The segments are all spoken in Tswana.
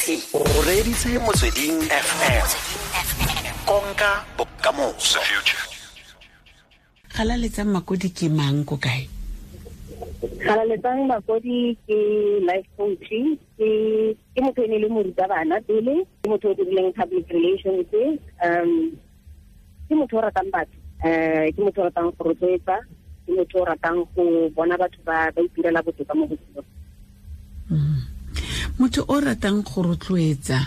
O reditse Motsweding FM. Konka bokamoso. Galaletsang Makodi ke mang, ko kae? Galaletsang Makodi ke life coach, ke motho e ne le morutabana pele, ke motho o dirileng public relations, ke motho o ratang batho, ke motho o ratang go rotloetsa, ke motho o ratang go bona batho ba itirela botoka mo botshelong. Motho o ratang go rotloetsa,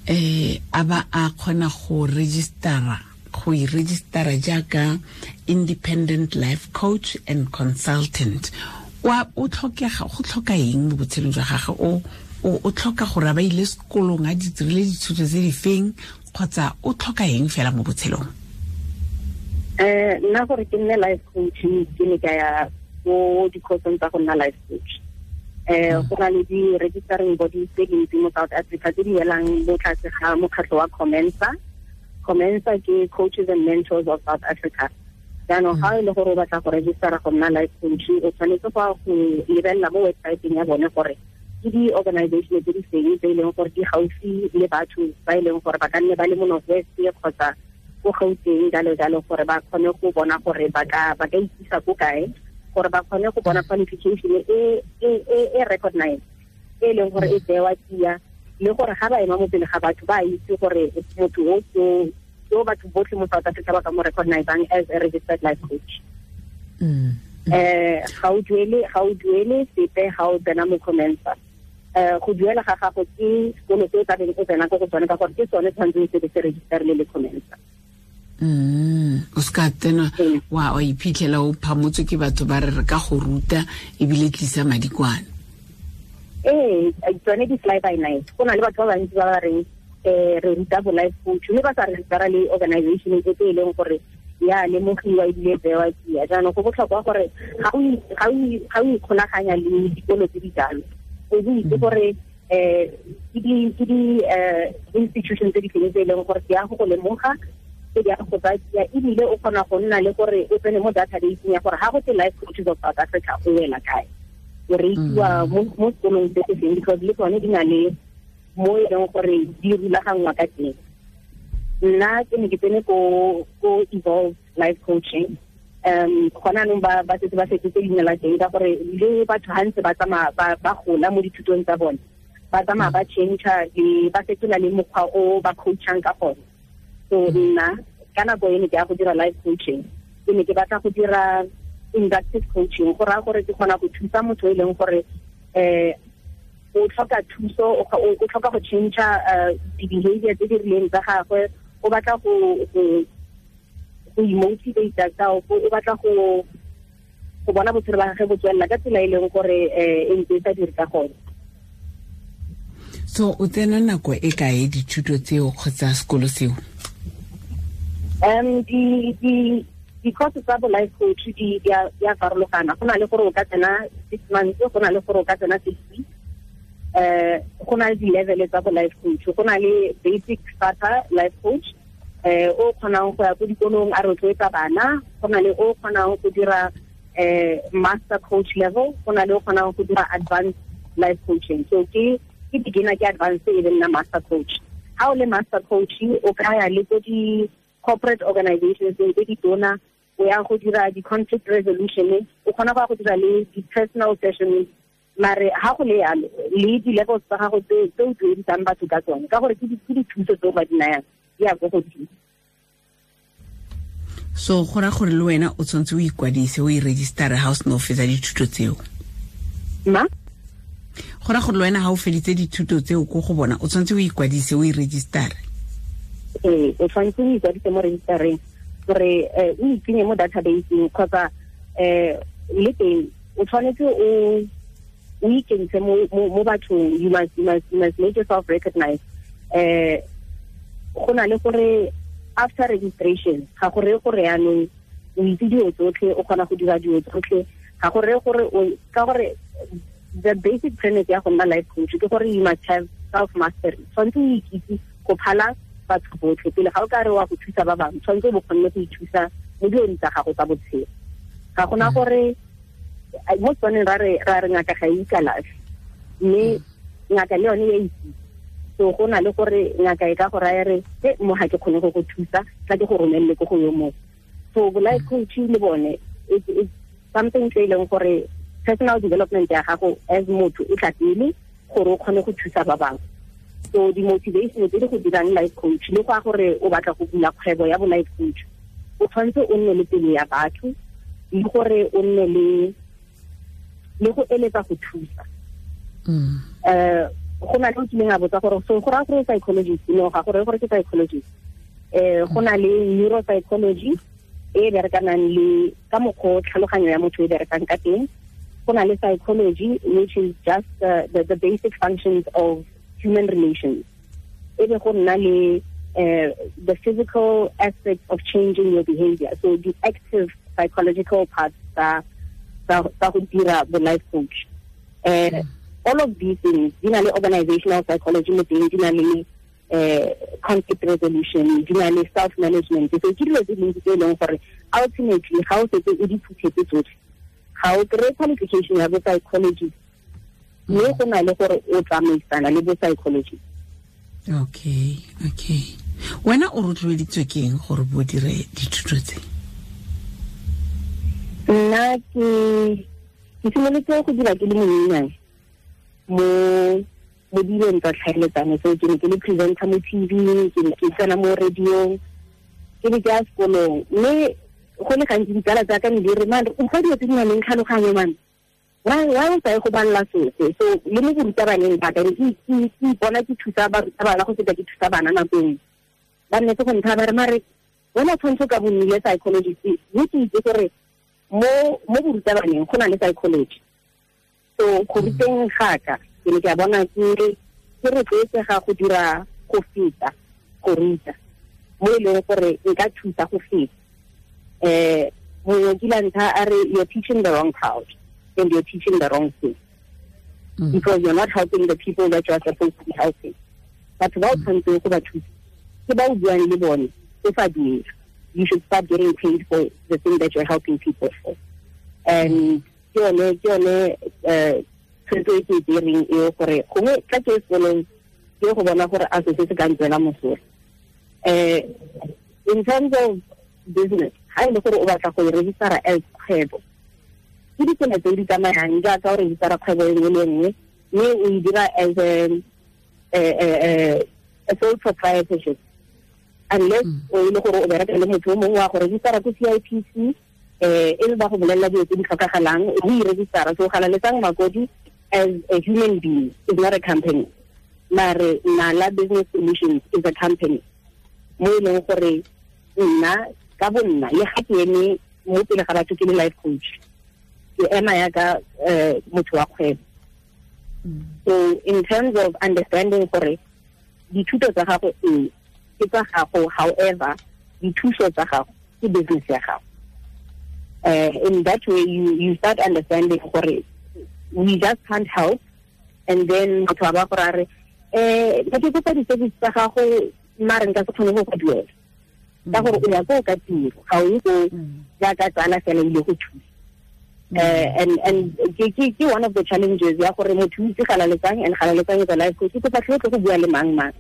a ba a kgona go registera, go e registera jaaka independent life coach and consultant, wa o tlhokega, go tlhoka eng mo botshelong jwa gagwe? O tlhoka gore a ba ile sekolong, a di dirile dithuto tse di feng, kgotsa o tlhoka eng fela mo botshelong? Nna gore ke nne life coach, ke ne ka ya ko di-courseng tsa go nna life coach. Go na le di-registering bodies tse dintsi mo South Africa tse di welang mo tlase ga mokgatlho wa Comensa. Comensa ke Coaches and Mentors of South Africa. Jaanong ga e le gore o batla go registera go nna life coach, o tshwanetse go ya go lebelela mo websiteng ya bone gore ke di-organization tse di feng tse e leng gore di gaufi le batho ba e leng gore ba ka nne ba le mo North West kgotsa ko Gauteng, jalo jalo, gore ba kgone go bona gore ba ka ikisa ko kae, gore ba kgone go bona qualification e recognized, e leng gore e tsewa tsia, le gore ga ba ema mo pele ga batho ba itse gore motho o ke o batho botlhe mo South Africa ba ka mo recognizang as a registered life coach. Ga o duele sepe ga o tsena mo Comensa. Go duela ga gago ke sekolo se o tlabeng o tsena ko go tsone, ka gore ke sone tshwanetseng se be se registerile le Comensa. O se ka tsena wa iphitlhela o phamotswe ke batho ba re re ka go ruta ebile tlisa madi kwana. Ee, tsone di fly by night. Go na le batho ba bantsi ba ba reng re ruta bo life coach, mme ba sa registera le organization e tse e leng gore ya lemogiwa ebile bewa tsia. Jaanong go botlhokwa gore ga o ikgolaganya le dikolo tse di jalo, o bo itse gore ke di institution tse di feng tse e leng gore di ya go go lemoga, tse di ya go tsaya tsia, ebile o kgona go nna le gore o tsene mo databaseng ya gore ga go te Life Coaches of South Africa, o wela kae, o reitsiwa mo sekolong se se feng, because le tsone di na le mo e leng gore di rulaganngwa ka teng. Nna ke ne ke tsene ko Evolve Life Coaching. Gona anong ba setse ba fetotse leina la teng, ka gore le batho ga ntse ba tsamaya ba gola mo dithutong tsa bone, ba tsamaya ba change le ba fetola le mokgwa o ba coachang ka gone. So nna ka nako e ne ke ya go dira life coaching, ke ne ke batla go dira inductive coaching, go raya gore ke kgona go thusa motho e leng gore o tlhoka thuso, o tlhoka go change di-behavior tse di rileng tsa gagwe, o batla go imotivate ka o batla go bona botshelo ba gagwe bo tswelela ka tsela e leng gore e ntse e sa dire ka gone. So o tsena nako e kae dithuto tseo kgotsa sekolo seo? Di course tsa bo life coach di a farologana. Go na le gore o ka tsena 6 months, go na le gore o ka tsena 6 weeks. Go na le di-level tsa bo life coach. Go na le basic starter life coach, o kgonang go ya ko dikolong a rotloetsa bana. Go na le o kgonang go dira master coach level. Go na le o kgonang go dira advanced life coaching. So ke beginner, ke advanced, e be nna master coach. Ha o le master coach, o ka ya le ko di corporate organizations tse di tona, o ya go dira di-conflict resolution, o kgona go ya go dira le di-personal sessions. Mare ha go le yalo, le di-levels tsa gago tse o duedisang batho ka tsone, ka gore ke dithuso tse o ba di nayang, di ya ko godimo. So go raya gore le wena o tshwanetse o ikwadise, o e registera ga o sena o fetsa dithuto tseo? Ma? Go raya gore le wena ga o feditse dithuto tseo ko go bona, o tshwanetse o ikwadise, o e registera? Ee, o tshwanetse o ikwadise mo registereng gore o itsenye mo databaseng, kgotsa le teng o tshwanetse o ikentshe mo bathong. You must make yourself recognized. Go na le gore after registration, ga go reye gore yaanong o itse dilo tsotlhe, o kgona go dira dilo tsotlhe. Ga go reye gore o ka gore the basic premise ya go nna life coach ke gore you must have self mastery. Tshwanetse o ikitse go phala batho botlhe pele ga o ka re wa go thusa ba bangwe. Tshwanetse o bo kgonne go ithusa mo dilong tsa gago tsa botshelo. Ga gona gore mo Setswaneng ra re ngaka ga e ikalafe, mme ngaka le yone ya itse. So go na le gore ngaka e ka go raya re e mo ga ke kgone go go thusa, tla ke go romelele ko go yo mongwe. So bo life coaching le bone it's something se e leng gore personal development ya gago as motho e tla pele gore o kgone go thusa ba bangwe. So di-motivation tse di go dirang life coach le go a gore o batla go bula kgwebo ya bo life coach, o tshwanetse o nne le pelo ya batho le gore o nne le go eletsa go thusa. Go na le o kileng a botsa gore so go raya gore psychologist, no ga gore gore ke psychologist. Go na le neuropsychology e berekanang le ka mokgwa tlhaloganyo ya motho e berekang ka teng. Go na le psychology which is just the basic functions of human relations. E be go nna le the physical aspect of changing your behavior, so the active psychological parts tsa go dira bo life coach. All of these things di na le organizational psychology mo teng, di na le conflict resolution, di na le self management. So ke dilo tse dintsi tse e leng gore ultimately ga o setse o di phuthetse tsotlhe, ga o kry-e qualification ya bo psychologist, mme go na le gore o tsamaisana le bo psychologist. Okay. Wena o rotloeditswe ke eng gore bo dire dithuto tse? Nna ke simolotse go dira ke le monyenyane mo dilong tsa tlhaeletsano. So ke ne ke le presenter mo TV, ke ne ke tsena mo radiong, ke ne ke ya sekolong. Mme go le gantsi ditsala tsa ka ne di re, man, o fa dilo tse di nang le tlhaloganyo, man, why o sa ye go balela sese? So le mo borutabaneng ba ka ke ipona ke thusa barutabana go feta ke thusa bana nako nngwe. Ba nnetse go nthaya ba re, mare wena o tshwanetse o ka bo nnile psychologist. Mme ke itse gore mo borutabaneng go na le psychology. So go ruteng ga ka ke ne ke a bona ke rotloetsega go dira go feta go ruta, mo e leng gore nka thusa go feta. Mongwe kile a nthaya a re, you're teaching the wrong crowd and you're teaching the wrong thing. Because you're not helping the people that you are supposed to be helping. Batho ba o tshwanetseng go ba thusa ke ba o buang le bone o sa duela. You should start getting paid for the thing that you're helping people for. And ke yone tshwetso e ke e tsereng eo gore gongwe tla ke sekolong ke go bona gore a se se ka ntswela mosola. In terms of business, ga e le gore o batla go e registera as kgwebo, ke ditsela tse di tsamayang jaaka o registera kgwebo e nngwe le nngwe, mme o e dira as a sole proprietorship, unless o e le gore o bereka le motho o mongwe wa go registera ko CIPC, e le ba go bolelela dilo tse di tlhokagalang, o e registera. So Galaletsang Makodi as a human being is not a company, mare Nala Business Solutions is a company mo e leng gore nna ka bo nna le ga ke eme mo pele ga batho ke le life coach, ke ema yaka motho wa kgwebo. So in terms of understanding gore dithuto tsa gago ee ke tsa gago, however dithuso tsa gago ke business ya gago. In that way you start understanding gore we just can't help. And then motho a ba gore a re ke kopa di-service tsa gago mare nka se kgone go go duela, ka gore o ya ko ka tiro, ga o ye ko jaaka tsala fela ile go thusa. And ke one of the challenges ya gore motho o itse Galaletsang, and Galaletsang is a life coach, ke kopa tlhe go bua le mang mang.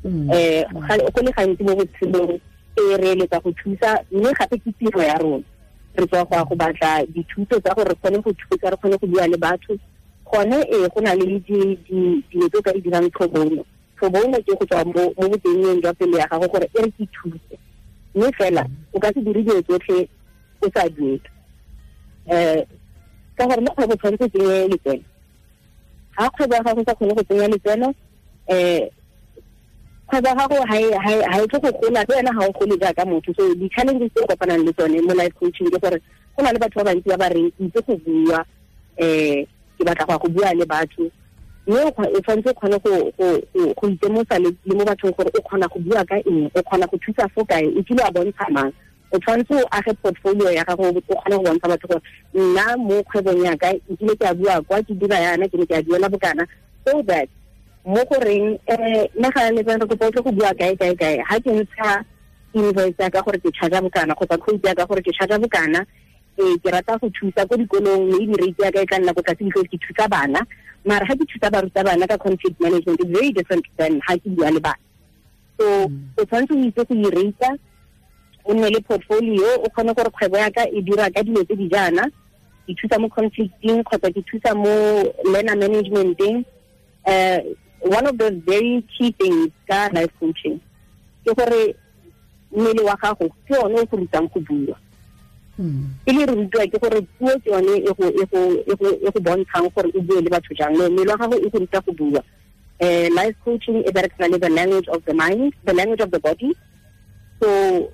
Go le gantsi mo botshelong e re eletsa go thusa, mme gape ke tiro ya rona. Re tswa go ya go batla dithuto tsa gore re kgone go thusa, re kgone go bua le batho. Gone ee go na le dilo tse o ka di dirang pro bono. Pro bono ke go tswa mo botengeng jwa pelo ya gago gore e re ke thuse, mme fela o ka se dire dilo tsotlhe o sa duele. Ka gore mo kgwebo tshwanetse tsenye letseno. Ga kgwebo ya gago sa kgone go tsenya letseno, kgwebo ya gago ha e tle go gola, le wena ga o gole jaaka motho. So di-challenges tse o kopanang le tsone mo life coaching ke gore go na le batho ba bantsi ba ba reng ke itse go bua, ke batla go ya go bua le batho, mme o tshwanetse o kgone go itemosa le mo bathong gore o kgona go bua ka eng, o kgona go thusa fo kae, o kile wa bontsha mang. O tshwanetse o age portfolio ya gago, o kgone go bontsha batho gore nna mo kgwebong ya ka nkile ke a bua kwa, ke dira yana, ke ne ke a duela bokana, so that mo goreng nna Galaletsang re kopa o tle go bua kae kae kae, ga ke ntsha invoice ya ka gore ke charge bokana kgotsa quote ya ka gore ke charge bokana, Ke rata go thusa ko dikolong, maybe rate ya ka e tla nna ko tlase because ke thusa bana. Mara ha ke thusa barutabana ka conflict management, it's very different than ha ke bua le bana. So o tshwanetse o itse go i-rate, o nne le portfolio, o kgone gore kgwebo ya ka e dira ka dilo tse di jaana, ke thusa mo conflicting kgotsa ke thusa mo learner managementeng. One of the very key things ka life coaching ke gore mmele wa gago ke one o go rutang go bua. E le re rutiwa ke gore puo ke yone e go bontshang gore o bue le batho jang. No, mmele wa gago e go ruta go bua. Life coaching e berekisana le the language of the mind, the language of the body. So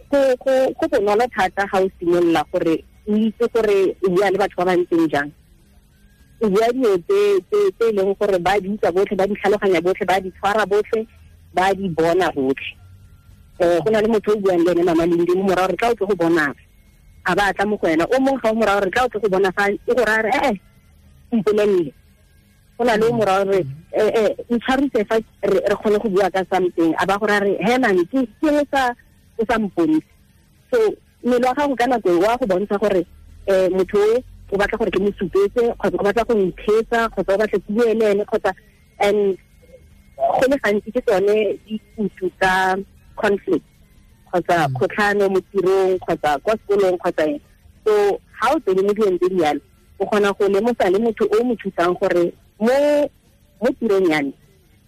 go bonolo thata ga o simolola gore o itse gore o bua le batho ba ba ntseng jang. O bua dilo tse e leng gore ba di utlwa botlhe, ba di tlhaloganya botlhe, ba di tshwara botlhe, ba di bona botlhe. Go na le motho o buang le ene, Mama Lindi, mo morago re tla o tle go bona, a ba tla mo go wena. O mongwe ga o morago re tla o tle go bona fa e go raya re mpolelele. Go na le o morago re ntshwarise fa re kgone go bua ka something, a ba go raya re he man, ke o sa mponise. So mmele wa gago ka nako e wa go bontsha gore motho o batla gore ke mo supetse, kgotsa o batla go ntheetsa, kgotsa o batla ke bue le ene, kgotsa. And go le gantsi ke tsone dikutu tsa conflict kgotsa kgotlhano mo tirong kgotsa kwa sekolong kgotsa eng. So ha o tsene mo dilong tse di yalo, o kgona go lemosa le motho o mo thusang gore mo tirong ya me,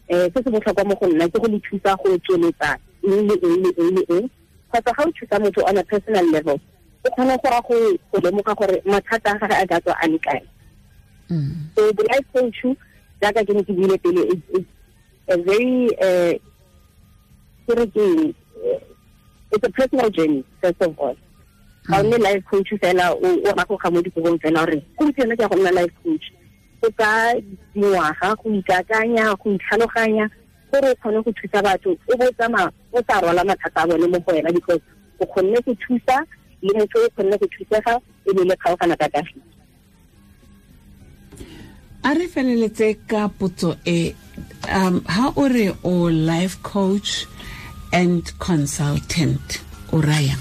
se se botlhokwa mo go nna ke go le thusa go tsweletsa eng le eng le eng le eng. Kgotsa ga o thusa motho on a personal level, o kgona go ra go lemoga gore mathata a gage a ka tswa a le kae. So the life coach, jaaka ke ne ke buile pele, is a very ke re ke eng, it's a personal journey first of all. Ga o nne life coach fela o ragoga mo dikobong fela gore gompieno ke ya go nna life coach. Go ka dingwaga go ikakanya, go itlhaloganya gore o kgone go thusa batho, o bo tsamaya o sa rwala mathata a bone mo go wena, because o kgonne go thusa le motho o kgonne go thusega, e be le kgaogana ka kagiso. A re feleletse ka potso e, ha o re o life coach and consultant, o raya?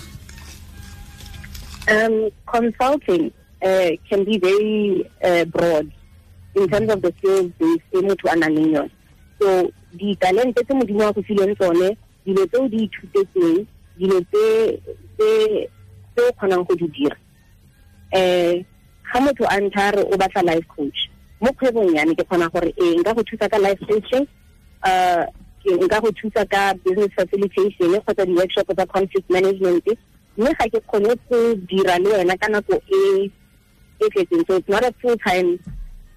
Consulting can be very broad in terms of the skills base e motho a nang le yone. So ditalente tse Modimo a go fileng tsone, dilo tse o di ithutetseng, dilo tse o kgonang go di dira. Ga motho a ntha re o batla life coach mo kgwebong ya me, ke kgona gore ee, nka go thusa ka life coaching, nka go thusa ka business facilitation kgotsa di-workshop tsa conflict management, mme ga ke kgone go dira le wena ka nako e e tletseng. So it's not a full time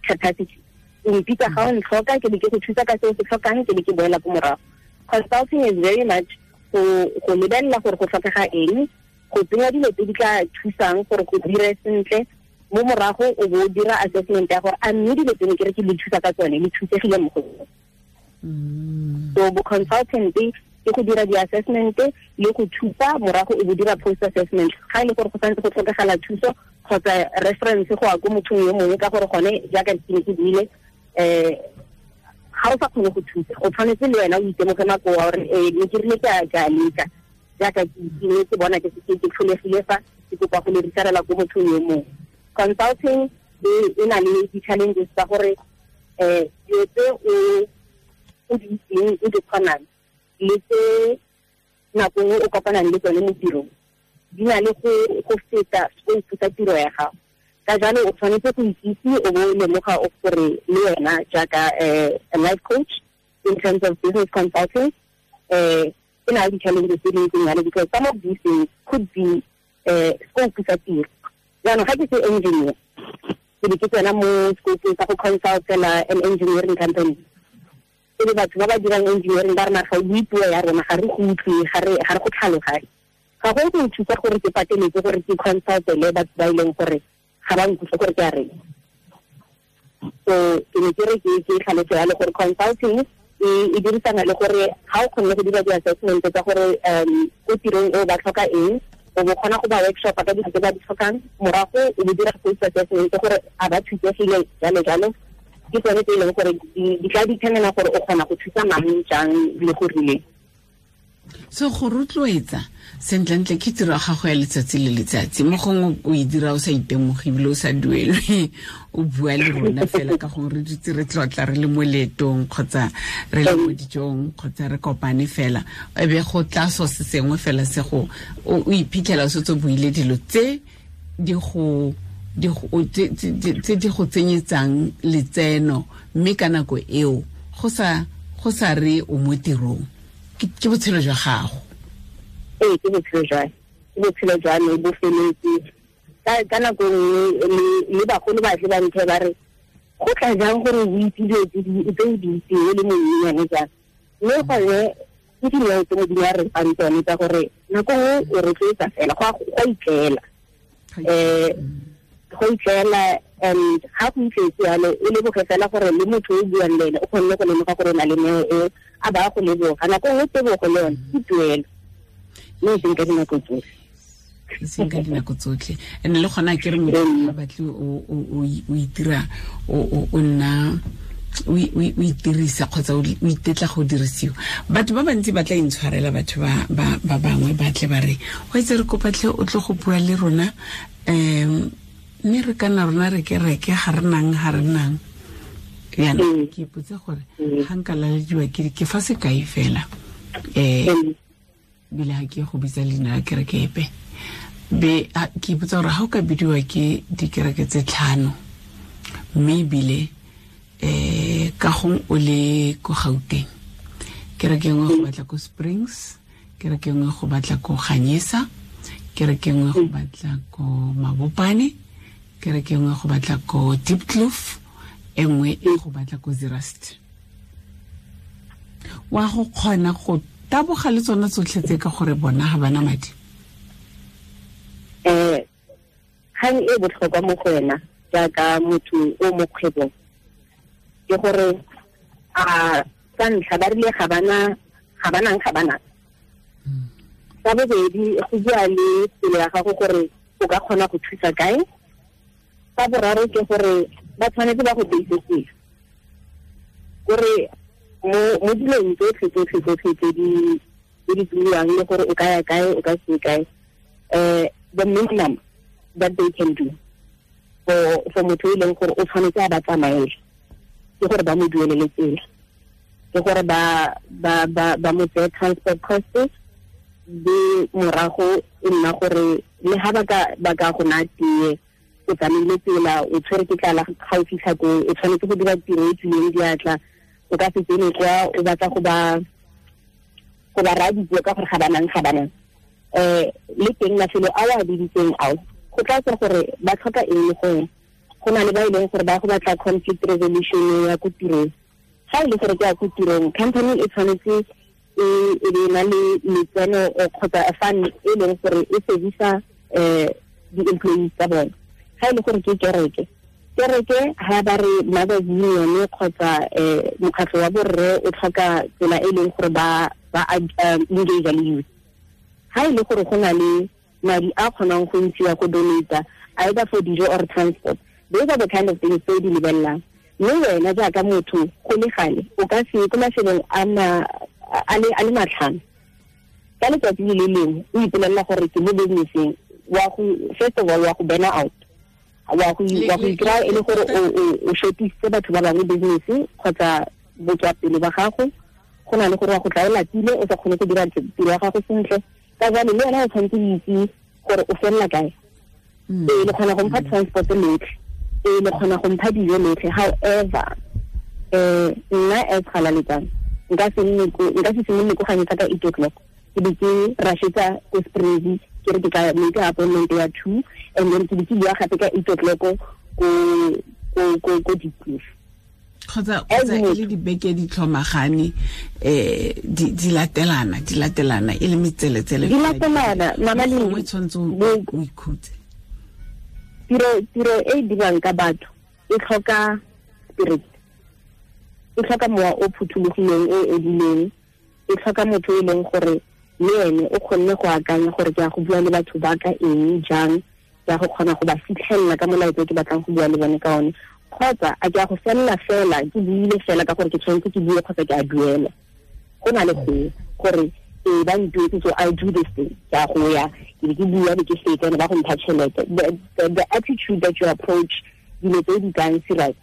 capacity. O mpitsa ga o ntlhoka, ke be ke go thusa ka se o se tlhokang, ke be ke boela ko morago. Consulting is very much go lebelela gore go tlhokega eng, go tsenya dilo tse di tla thusang gore go dire sentle mo morago, o bo o dira assessment ya gore a mme dilo tseno ke re ke le thusa ka tsone le thusegile mo go tsone. So bo consultant ke go dira di-assessment le go thusa, morago o bo dira post assessment ga e le gore go santse go tlhokagala thuso kgotsa reference go ya ko mothong yo mongwe, ka gore gone jaaka ke ne ke buile, ga o sa kgone go thusa, o tshwanetse le wena o itemoge makoa gore ee, ne ke rile ke a leka jaaka ke ne ke bona ke tlholegile fa ke kopa go le referela ko mothong yo mongwe. Consulting e na le di-challenges tsa gore dilo tse o di itseng, o di kgonang, le tse nako nngwe o kopanang le tsone mo tirong di na le go feta scope sa tiro ya gago. Ka jalo o tshwanetse go ikitse, o bo o lemoga o gore le wena jaaka a life coach in terms of business consulting, e na le di-challenges tse di ntseng jalo, because some of these things could be scope sa tiro. Jaanong ga ke se engineer, ke be ke tsena mo scope sa go consultela an engineering company, e le batho ba ba dirang engineering ba re mara ga o bue puo ya rona, ga re go utlwe, ga re go tlhaloganye. Ga go nthusa gore ke pateletse gore ke consultele batho ba e leng gore ga ba nkutlwe gore ke a reng. So ke ne ke re ke tlhaloso yalo gore consulting e dirisana le gore ga o kgonne go dira di-assessment tsa gore ko tirong eo ba tlhoka eng, o bo kgona go ba workshop ka dilo tse ba di tlhokang, morago o bo dira post assessment gore a ba thusegile, jalo jalo. Ke tsone tse e leng gore di tla determina gore o kgona go thusa mang jang le go rileng. So go rotloetsa sentlentle ke tiro ya gago ya letsatsi le letsatsi, mo gongwe o e dira o sa itemoge ebile o sa duelwe, o bua le rona fela ka gongwe re dutse re tlotla re le mo leetong kgotsa re le mo dijong kgotsa re kopane fela, e be go tla so se sengwe fela se go o iphitlhela o setse o buile dilo tse di go tse di go tsenyetsang letseno, mme ka nako eo go sa re o mo tirong, ke botshelo jwa gago. Ee, ke botshelo jwa ke botshelo jwa me bo feletse. Ka nako nngwe le bagolo ba tle ba nthe ba re go tla jang gore o itse dilo tse o di itseng o le monyenyane jang, mme gone ke dineo tse Modimo a re fang tsone tsa gore nako nngwe o rotloetsa fela go a itlela, go itlela. And ga go itletse yalo o leboge fela gore le motho o buang le ene o kgonne go lemoga gore o na le neo eo, a ba go leboga. Nako nngwe tebogo le yone ke tuelo, mme e seng ka dinako tsotlhe. E seng ka dinako tsotlhe. And le gona ke re motho ga batle o itira o nna o itirisa kgotsa o itetla go dirisiwa. Batho ba bantsi ba tla intshwarela, batho ba bangwe ba tle ba re go itse re kopatlhe o tle go bua le rona, mme re kana rona re kereke ga re nang yana. Ke ipotse gore ga nka lalediwa ke fa sekai fela, bile ga ke go bitsa leina la kereke epe, be ke ipotsa gore ga o ka bidiwa ke dikereke tse 5, mme ebile ka gong o le ko Gauteng, kereke nngwe go batla ko Springs, kereke nngwe go batla ko Ganyesa, kereke nngwe go batla ko Mabopane, kereke nngwe go batla ko Diepkloof, e nngwe e go batla ko Zeerust. Wa go kgona go taboga le tsona tsotlhe tse ka gore bona ga bana madi? Kgang e botlhokwa mo go wena jaaka motho o mo kgwebong ke gore a sa ntlha ba rile ga bana. Sa bobedi, go bua le pelo ya gago gore o ka kgona go thusa kae. Sa boraro ke gore ba tshwanetse ba go teisetse gore mo dilong tsotlhe tse di buiwang le gore o ka ya kae o ka se kae, the minimum that they can do for motho e leng gore o tshwanetse a ba tsamaele ke gore ba mo duelele tsela, ke gore ba mo tseye transport costs, be morago e nna gore le ha ba ka go naya tee, o tsamaile tsela, o tshwere ke tlala ga o fitlha ko, o tshwanetse go dira tiro e tswileng diatla, o ka se tsene kwa o batla go ba raya dipuo ka gore ga banang. Le teng mafelo a o a biditseng ao go tla tswa gore ba tlhoka eng le gongwe. Go na le ba e leng gore ba go batla conflict resolution ya ko tirong. Ga e le gore ke ya ko tirong, company e tshwanetse e be na le letseno kgotsa a fund e leng gore e servisa di-employees tsa bone. Ga e le gore ke kereke ha ba re Mothers Union kgotsa mokgatlho wa borre o tlhoka tsela e leng gore ba engage le youth. Ha e le gore go na le madi a kgonang go ntshiwa go donata either for dijo or transport, those are the kind of things tse di lebelelang. Mme wena jaaka motho go le gale o ka se ko mafelong a le matlhano ka letsatsi le le lengwe o ipolelela gore ke mo businesseng, wa go first of all wa go burn out, wa go ikry-a e le gore o shortise batho ba bangwe business kgotsa botswapele ba gago, go na le gore wa go tla o lapile o sa kgone go dira tiro ya gago sentle. Ka jalo le wena o tshwanetse o itse gore o felela kae. Ee, le kgona go mpha transport lotlhe, ee, le kgona go mpha dijo lotlhe. However, nna as Galaletsang nka se simolole ko Ganyesa ka 8:00, ke be ke rashetsa ko Springs, ke re ke ka make appointment ya 2, and then ke be ke bua gape ka 8:00 ko Diepkloof. Kgotsa e le dibeke di tlhomagane, di latelana e le metseletsele di latelana. Mama le o tshwanetse o ikhutse. Tiro e dirwang ka batho e tlhoka spirit, e tlhoka mowa o phuthologileng o edileng, e tlhoka motho e leng gore le ene o kgonne go akanya gore ke ya go bua le batho ba ka eng jang, ke ya go kgona go ba fitlhelela ka molaetsa ke batlang go bua le bone ka one, kgotsa a ke ya go felela fela ke buile fela ka gore ke tshwanetse ke bue kgotsa ke a duela. Go na le go gore Ba ntuetse, so I do this thing. Ke a go ya, ke be ke bua, be ke fetsa, ba go mpha tšhelete. The attitude that you approach dilo tse di kang serious,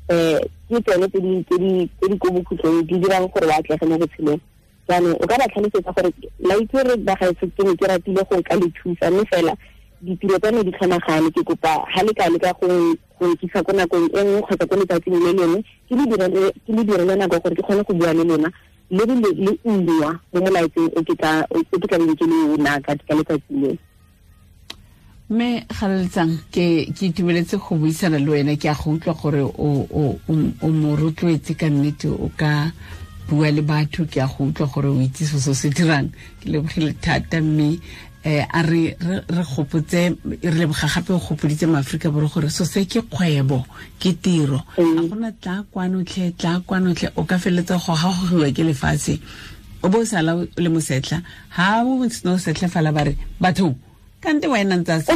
ke tsone tse di ko bokhutlong di dirang gore o atlege mo botshelong. Jaanong o ka ba tlhalosetsa gore la itse re bagaetsho, ke ne ke ratile go ka le thusa, mme fela ditiro tsa me di tlhomagane. Ke kopa ha le ka leka go nkisa ko nakong e nngwe kgotsa ko letsatsing le lengwe, ke le direle nako gore ke kgone go bua le lona le le ungwa mo molaetseng o ke tla beng ke le o naka ka letsatsi leo. Mme Galaletsang, ke itumeletse go buisana le wena. Ke a go utlwa gore o mo rotloetse ka nnete, o ka bua le batho. Ke a go utlwa gore o itse se se dirang. Ke lebogile thata, mme a re gopotse, re leboga gape o gopoditse maAforika Borwa gore so se ke kgwebo, ke tiro. Ga gona tla kwano tlhe, tla kwano tlhe, o ka feleletsa go gagogiwa ke lefatshe, o bo o sala o le mosetlha. Ha o sena o setlha fala ba re batho kante wena ntse a o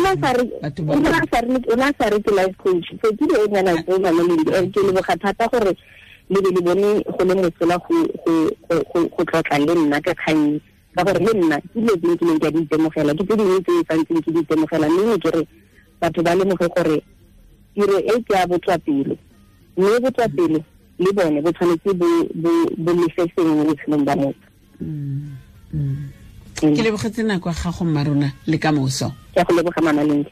na sa re ke life coach. So ke dilo nyana tse mama le ke leboga thata gore le be le bone go le mosola go tlotla le nna ka kgang, ka gore le nna ke dilo tse nkileng ke a di itemogela, ke tse dingwe tse santseng ke di itemogela. Mme ke re batho ba lemoge gore tiro e ke ya botswapelo, mme botswapelo le bone bo tshwanetse bo lefe sengwe mo botshelong ba motho. Ke lebogetse nako ya gago mma rona, le ka moso. Ke a go leboga mama Lindi.